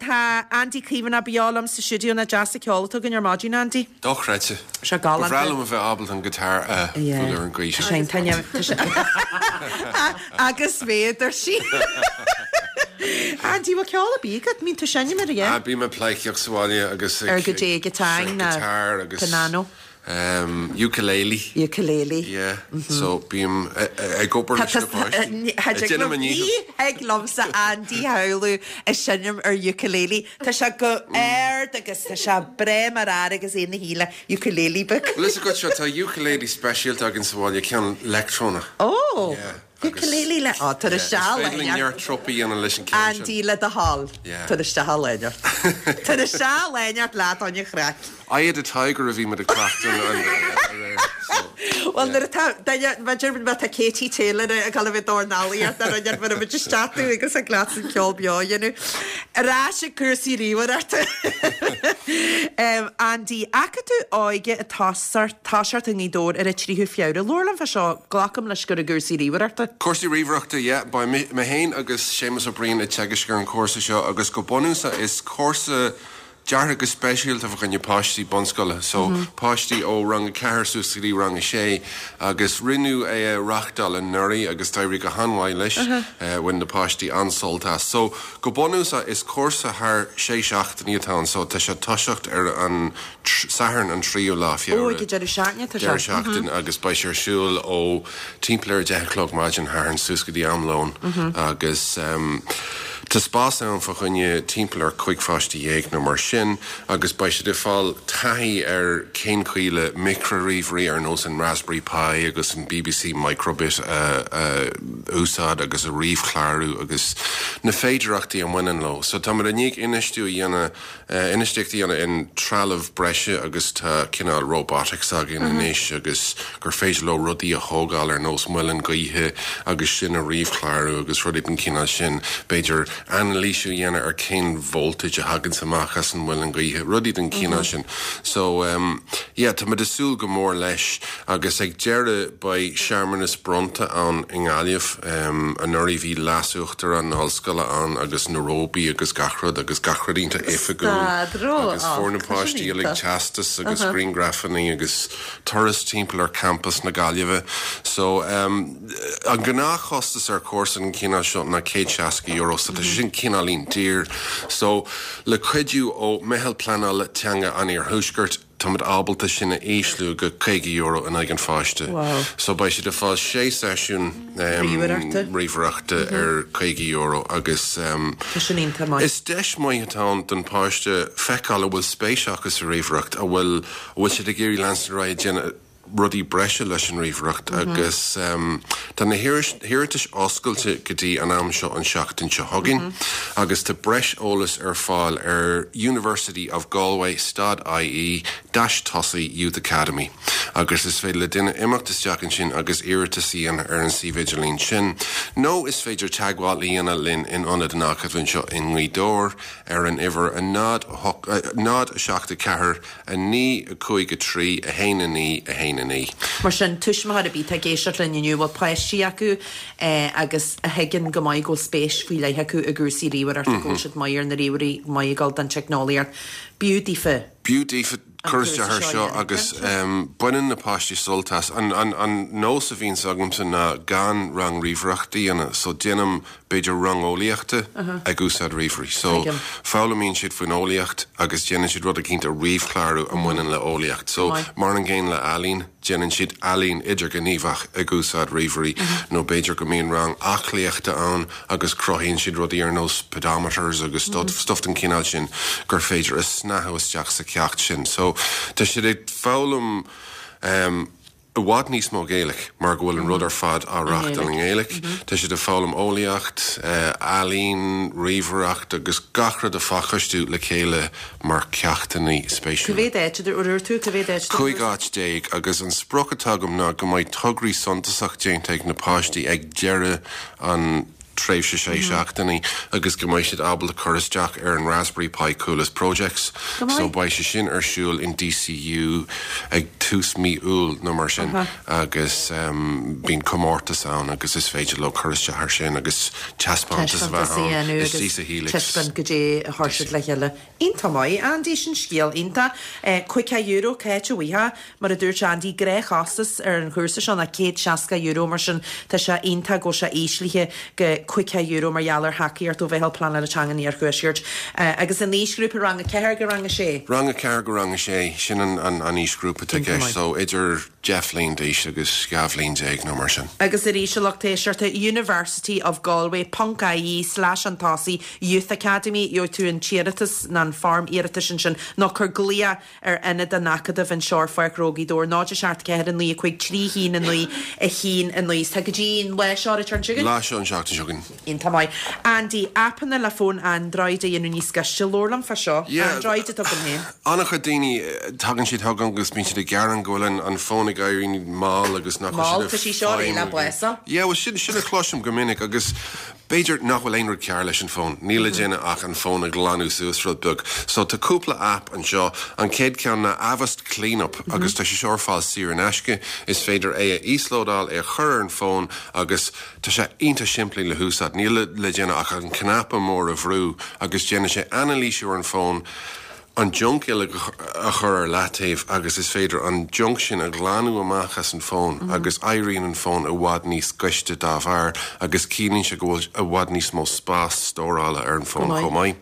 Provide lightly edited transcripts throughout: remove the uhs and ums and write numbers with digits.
Tá Andy Caomhánach beo liom sa stiúideo nach deas an ceol atá againn ar maidin, Andy. Dochreidte. Sé galánta. Ba bhreá liom a bheith ábalta an guitar a bhualadh ar an gcaoi sin. Tá sé tá sé Agus méadar sí. Andy, bhfuil ceol ar bith agat? Mbíonn tú seinm air, yeah? Ah, bím ag pleidhcíocht sa bhaile agus ag Ar goidé guitar ná guitar agus pianó. Ukulele. Ukulele. Yeah. So bím ag obair leis na páistí. Ag déanamh mo ndícheall. Ní thig liomsa Andy a shamhlú ag seinm ar ukulele. Tá sé go ard agus tá sé breá mar fhear agus é ina shuí le ukulele beag. Bhfuil fhios agat seo, tá ukulele speisialta againn sa bhaile, ceann leictreonach. Ó! Yeah. Ukulele le, ó, tar isteach Is féidir linn neart trup a dhéanamh leis an ceann sin. Andy le do thoil. Yeah. Tar isteach a léineart. Tar isteach a léineart leat on chraic. Eye of the Tiger a bhí muid ag cleachtadh aréir. So, Bhuel, nuair atá duine, b'fhéidir má tá Katie Taylor ag dul a bheith dornálaíocht ar an ar muid isteach tú agus ag leat an ceol beo a dhéanamh. Ar ais ag cúrsaí ríomhaireachta. Andy, Acadamh Óige ag toiseacht i nGaoth Dobhair ar an 3ú Feabhra. Labhair liom fá seo, glacaim leis gur i gcúrsaí ríomhaireachta. Cúrsaí ríomhaireachta, yeah. Beidh mé féin agus Séamus Ó Briain ag teagasc ar an chúrsa seo agus go bunúsach is cúrsa deartha go speisialta fá choinne páistí bunscoile, so páistí ó rang a ceathair suas go dtí rang a sé agus rinneadh é a reachtáil anuraidh agus d'éirigh go han-mhaith leis, bhain na páistí an-sult as. So go bunúsach is cúrsa thar sé seachtainí atá ann so tá sé ag toiseacht ar an Satharn an tríú lá Feabhra. Ó, ag an deireadh seachtaine atá sé. Deireadh seachtaine agus beidh sé ar siúl ó timpeall ar a 10 a chlog maidin Shathairn suas go dtí am lóin agus tá spás ann fá choinne timpeall ar 15 pháiste nó mar sin agus beidh siad ag fáil taithí ar cén chaoi le micrea-ríomhairí ar nós an Raspberry Pi agus an BBC Microbit a úsáid agus a ríomhchlárú agus na féidearthachtaí a mbaineann leo. So táimid i ndiaidh infheistiú a dhéanamh Infheistíocht a dhéanamh in trealamh breise agus tá cineál robotics againn anois agus gur féidir leo rudaí a thógáil ar nós muileann gaoithe agus sin a ríomhchlárú agus rudaí den chineál sin. B'fhéidir anailísiú a dhéanamh ar cén voltage a thaganns amach as an muileann gaoithe, rudaí den chineál sin. So, yeah, tá muid ag súil go mór leis agus ag deireadh beidh searmanas bronnta ann i nGaillimh. Anuraidh bhí Leas-Uachtarán na hOllscoile ann agus na róbaí agus gach rud agus gach rud iontach oifigiúil agus fuair na páistí uilig teastas agus grianghrafanna agus turas timpeall ar champas na Gaillimhe. So an gnáthchostas ar chúrsa den chineál seo ná €160 so tá sé sin cineáilín daor. So le cuidiú ó Meitheal Pleanála Teanga an Iarthuaiscirt, Táimid ábalta sin a ísliú go €50 in aghaidh an pháiste. So beidh siad ag fáil sé seisiún ríomhaireachta ar €50 agus is deis maith atá ann don pháiste feiceáil an bhfuil spéis acu sa ríomhaireacht, an bhfuil an bhfuil siad ag iarraidh leanstan ar aghaidh ag déanamh rudaí breise leis an ríomhaireacht agus tá na hiarratais oscailte go dtí an am seo an seachtain seo chugainn agus tá breis eolais ar fáil ar University of Galway stad IE dash tosaigh Youth Academy agus is féidir le duine imeacht isteach ansin agus iarratas a dhéanamh ar an suíomh idirlín sin nó is féidir teagmháil a dhéanamh linn in Ionad an Acadaimh anseo i nGaoth Dobhair ar an uimhir 0 8 0 7 4 9 5 3 1 9 1 9. Mar sin, tuismitheoir ar bith atá ag éisteacht linn inniu a bhfuil páistí acu agus a thuigeann go maith go bhfuil spéis faoi leith acu i gcúrsaí ríomhaireachta, go bhfuil siad maith ar na ríomhairí, maith ag dul don teicneolaíocht, b'fhiú daofa. B'fhiú daofa cur isteach air seo agus baineann na páistí sult as. An nós a bhíonns agamsa ná gan rang ríomhaireachta a dhéanamh so déanaim b'fhéidir rang eolaíochta ag úsáid ríomhairí. So, foghlaimíonn siad faoin eolaíocht agus déanann siad rud eicínt a ríomhchlárú a mbaineann le eolaíocht. So, mar an gcéanna le ealaín, déanann siad ealaín idirghníomhach ag úsáid ríomhairí nó b'fhéidir go mbíonn rang aclaíochta ann agus cruthaíonn siad rudaí ar nós pedometers agus stuff den chineál sin gur féidir a shnáthú isteach sa cheacht sin. So, tá siad ag foghlaim i bhfad níos mó Gaeilge mar go bhfuil an rud ar fad á reachtáil i nGaeilge. Tá siad ag foghlaim eolaíocht, ealaín, ríomhaireacht agus gach rud a phacáistiú le chéile mar cheachtanna spéisiúla. Cá mhéad áit a dúirt tú? Cá mhéad áit? 15 áit agus an sprioc atá agam ná go mbeidh tograí suntasach déanta ag na páistí ag deireadh an. tréimhse sé seachtainí agus go mbeidh siad ábalta cur isteach ar an Raspberry Pi Coolest Projects. Go maith. So beidh sé sin ar siúl in DCU ag tús mí Iúil nó mar sin agus bíonn comórtas ann agus is féidir leo cur isteach ar sin agus taispeántas a bheith Taispeántas a ann dhéanamh istigh agus sa Helix. taispeáint goidé a chuir siad le chéile. Iontach maith, Andy, sin scéal iontach. €50, cá háit a bhfaighfeá? Mar a dúirt Andy, gnáthchostas ar an chúrsa seo ná €160, mar sin tá sé iontach go bhfuil sé íslithe go €50 mar gheall ar thacaíocht ó Mheitheal Pleanála Teanga an Iarthuaiscirt. Agus an aoisghrúpa rang 4 go rang 6? Rang 4 go rang 6, sin an aoisghrúpa atá i gceist, so idir 10 bhliain d'aois agus 12 bhliain nó mar sin. Agus arís, a lucht éisteachta, University of Galway ponc ie slash chun tosaigh Youth Academy, gheobhaidh tú an t-iarratas nó an foirm iarratais ansin, nó cuir glaoch ar ionad an Acadaimh anseo ar Pháirc Ghnó Ghaoth Dobhair, 0 7 4 9 5 3 1 9 1 9. Is tá go dtí an lá seo ar an tseachtain seo chugainn. Lá seo an tseachtain seo chugainn. Iontach maith. Andy, aipeanna le fóin Android a dhéanamh níos gaiste. Labhair liom fá seo. Yeah. Android atá agam féin. An-chuid daoine, tagann siad chugam agus bíonn siad ag gearán go bhfuil an an fón ag éirí mall agus nach bhfuil Mall, siad tá ag sí seo réidh le feidhmiú. blása. Yeah, well sin sin a chloisim go minic agus B'fhéidir nach bhfuil aon rud cearr leis an bhfón. Níl le déanamh ach an fón a ghlanadh suas rud beag. So tá cúpla aip anseo. An chéad ceann ná Avast Cleanup agus tá sé seo ar fáil saor in aisce. Is féidir é a íoslódáil, é a chur ar an bhfón agus tá sé iontach simplí le húsáid. Níl le déanamh ach an cnaipe mór a bhrú agus déanann sé anailísiú ar an bhfón. an junk uilig a chur ar leataobh agus is féidir an junk sin a ghlanadh amach as an bhfón agus éiríonn an fón i bhfad níos gaiste dá bharr agus ciallaíonn sé go bhfuil i bhfad níos mó spás stórála ar an bhfón chomh maith.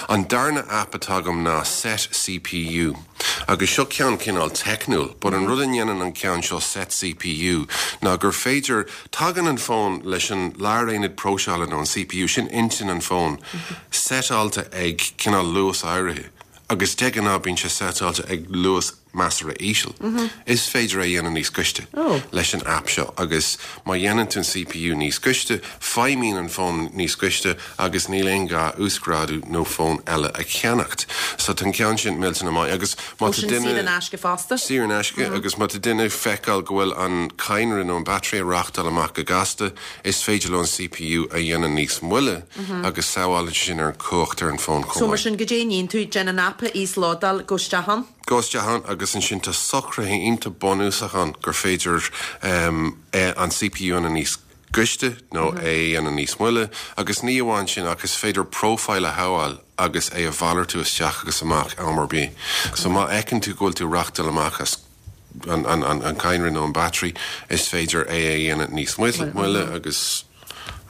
An darna aip atá agam ná Set CPU agus seo ceann cineál teicniúil but an rud a ndéanann an ceann seo Set CPU ná gur féidir, tagann an fón leis an láraonad próiseála nó an CPU, sin intinn an fóin, seiteáilte ag cineál luas áirithe agus de ghnáth bíonn sé seiteáilte ag luas measartha íseal. Is féidir é a dhéanamh níos gaiste leis an aip seo agus má dhéanann tú an CPU níos gaiste, feidhmíonn an fón níos gaiste agus níl aon ghá uasghrádú nó fón eile a cheannacht. So tá an ceann sin millteanach maith agus má Ó tá sin duine. saor in aisce fosta? Saor in aisce agus má tá duine ag feiceáil go bhfuil an cadhnra nó an battery ag reachtáil amach go gasta, Is féidir leo an CPU a dhéanamh níos moille agus sábhálann sé sin ar an chumhacht ar an bhfón chomh So mar maith. sin, goidé a níonn tú, déan an aip a íoslódáil, gabh isteach ann. Gabh isteach ann agus ansin tá socruithe iontach bunúsach ann gur féidir an CPU a dhéanamh níos gaiste nó é a dhéanamh níos moille agus ní amháin sin ach is féidir profile a shabháil agus é a mhalartú isteach agus amach am ar bith. So má fheiceann tú go bhfuil tú ag reachtáil amach as an cadhnra nó an battery, is féidir é a dhéanamh níos moille agus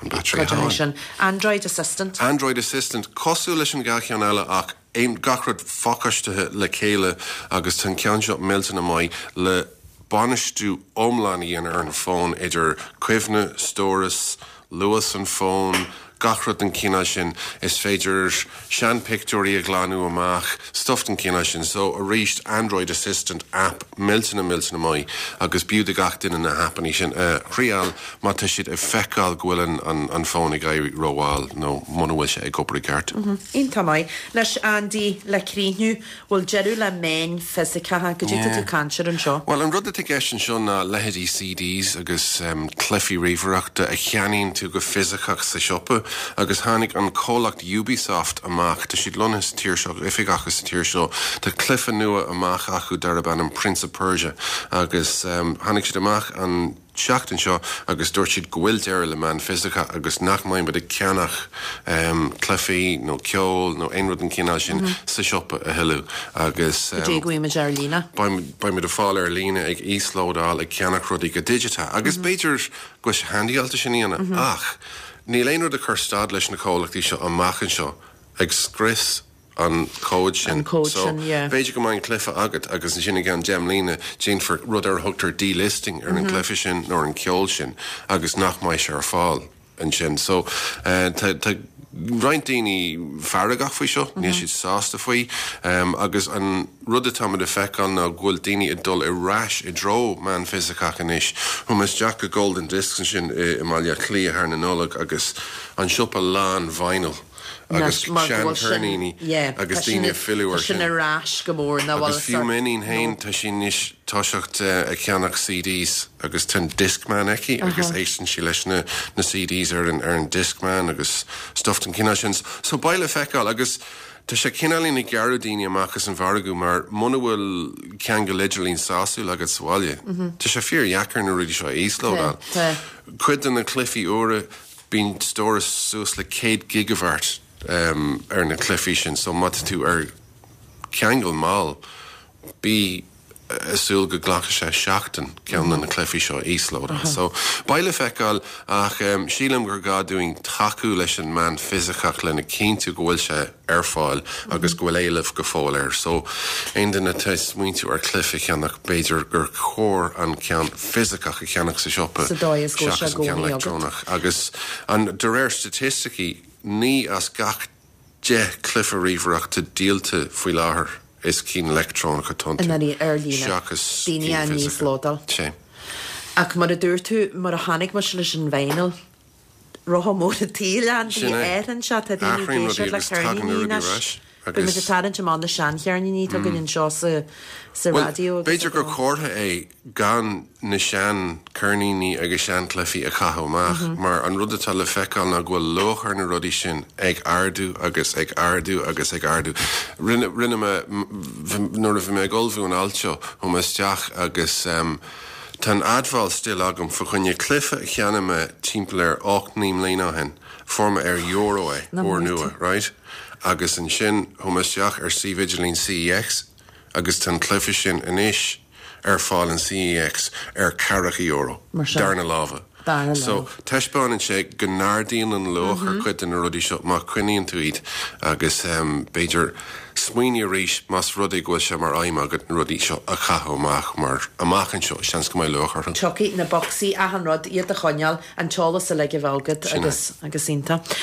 an battery a shábháil. sin. Android Assistant. Android Assistant, cosúil leis an dhá cheann eile ach aon, gach rud phacáistithe le chéile agus tá an ceann seo millteanach maith le bainistiú iomlán a dhéanamh ar an bhfón idir cuimhne, stóras, luas an fhóin, gach rud den chineál sin. Is féidir seanphictiúirí a ghlanadh amach, stuff den chineál sin. So, arís, Android Assistant app millteanach millteanach maith agus b'fhiú do gach duine na haipeanna sin a thriáil má tá siad ag feiceáil go bhfuil an fón ag éirí rómhall nó muna bhfuil sé ag obair i gceart. Iontach maith. Anois, Andy, le críochnú, Bhfuil deireadh le meáin fisiceacha? Goidé tá tú ag caint air anseo? Bhuel, an rud atá i gceist anseo ná leithéidí CDs agus cluichí ríomhaireachta a cheannaíonn tú go fisiceach sa siopa agus tháinig an comhlacht Ubisoft amach, tá siad lonnaithe sa tír seo, oifig acu sa tír seo, tá cluiche nua amach acu darb ainm Prince of Persia agus tháinig siad amach an tseachtain seo agus dúirt siad go bhfuil deireadh le meán fisiceach agus nach mbeidh muid ag ceannach cluichí nó ceol nó aon rud den chineál sin sa siopa a thuilleadh agus Go dtí go bhfaighimid ar líne. beidh muid ag fáil ar líne, ag íoslódáil, ag ceannach rudaí go digiteach agus b'fhéidir go bhfuil sé handyáilte sin a dhéanamh ach níl aon rud ag cur stad leis na comhlachtaí seo amach anseo ag scrios an cód sin. An cód So, sin, yeah. b'fhéidir go mbeidh an cluiche agat agus ansin i gceann 10 mbliana déanfar rud ar a thugtar delisting ar an gcluiche sin nó ar an ceol sin agus nach mbeidh sé ar fáil ansin. So, tá, tá roinnt daoine feargach faoi seo, níl siad sásta faoi agus an rud atáimid ag feiceáil ná go bhfuil daoine ag dul ar ais i dtreo meán fisiceach anois. Chuaigh mé isteach go Golden Discs ansin i mBaile Átha Cliath thar na Nollag agus an siopa lán vinyl. agus seancheirníní agus daoine ag filleadh air sin. Tá sin ar ais go mór ná Agus fiú m'iníon féin, tá sí anois toiseacht ag ceannach CDs agus tá an Discman aici agus éisteann sí leis na CDs ar an ar an Discman agus stuff den chineál sin. So beidh le feiceáil agus tá sé cineáilín ag gearradh daoine amach as an mhargadh mar muna bhfuil ceangal idirlín sásúil agat sa bhaile, tá sé fíordheacair na rudaí seo a íoslódáil. Cuid de na cluichí úra, Bíonn stóras suas le 100 gigabhairt ar na cluichí sin so má tá tú ar cheangal mall, bí ag súil go nglacfaidh sé seachtain ceann de na cluichí seo a íoslódáil. So, beidh le feiceáil ach sílim gur gá dúinn tacú leis an meán fisiceach lena chinntiú go bhfuil sé ar fáil agus go bhfuil éileamh go fóill air. So, aon duine atá ag smaointiú ar chluiche a cheannach, b'fhéidir gur chóir an ceann fisiceach a cheannach sa siopa Sa dóigh is go bhfuil sé seachas i an ceann gcónaí agat. leictreonach. Agus an, de réir staitisticí, 9 as gach 10 cluiche ríomhaireachta díolta faoi láthair is cinn leictreonach atá iontu, Ar líne. seachas Daoine cinn á fisiceacha. n-íoslódáil. Sea. Ach mar a dúirt tú, mar a chonaic mise leis an vinyl, Rotha mór an tsaoil ann, Sin é. athraíonn sé, tá daoine ag Athraíonn rudaí éisteacht le agus tagann na ceirníní rudaí ar anois. ais Beidh muid agus. ag tarraingt amach na seancheirníní atá againn anseo sa sa Bhuel, raidió agus b'fhéidir ag gur an. comhartha é gan na seancheirníní agus seanchluichí a chaitheamh amach mar an rud atá le feiceáil ná go bhfuil luach ar na rudaí sin ag ardú agus ag ardú agus ag ardú. Rinne, rinne mé, nuair a bhí mé ag ullmhú an ailt seo, chuaigh mé isteach agus Tá an admháil still agam fa choinne cluiche a cheannaigh mé timpeall ar 8, 9 mbliana ó shin. Fuair mé ar euro é, úrnua, right? Agus ansin chuaigh mé isteach ar suíomh idirlín CEX agus tá an cluiche sin anois ar fáil in CEX ar ceathracha euro, darna láimhe. So, taispeánann sé go n-ardaíonn an luach ar chuid de na rudaí seo má choinníonn tú iad agus b'fhéidir smaoinigh arís más rud é go bhfuil sé mar aidhm agat na rudaí seo a chaitheamh amach mar amach anseo seans go mbeidh luach orthu. Tiocfaidh na bocsaí, achan rud, iad a choinneáil, an t-eolas uilig a bheith agat agus agus iontach.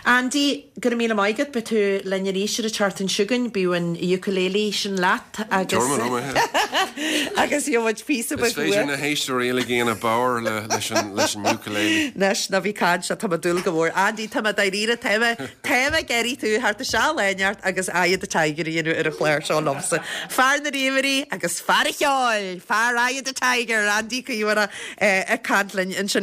Andy, go raibh míle maith agat, beidh tú linn arís ar an tseachtain seo chugainn, bíodh an ukulele sin leat agus Tabharfaidh mé liom é. agus gheobhaidh muid píosa Is beag féidir uait. na héisteoirí uilig a dhéanamh bodhar leis an leis an ukulele. Anois, ná bí caint, tá mé ag dúil go mór. Andy, tá mé dáiríre, tá mé, tá mé ag iarraidh tú theacht isteach lá inteacht agus Eye of the Tiger a dhéanamh ar an chlár seo liomsa. Fear na ríomhairí agus fear an cheoil! Fear Eye of the Tiger, Andy Caomhánach ag caint linn ansin.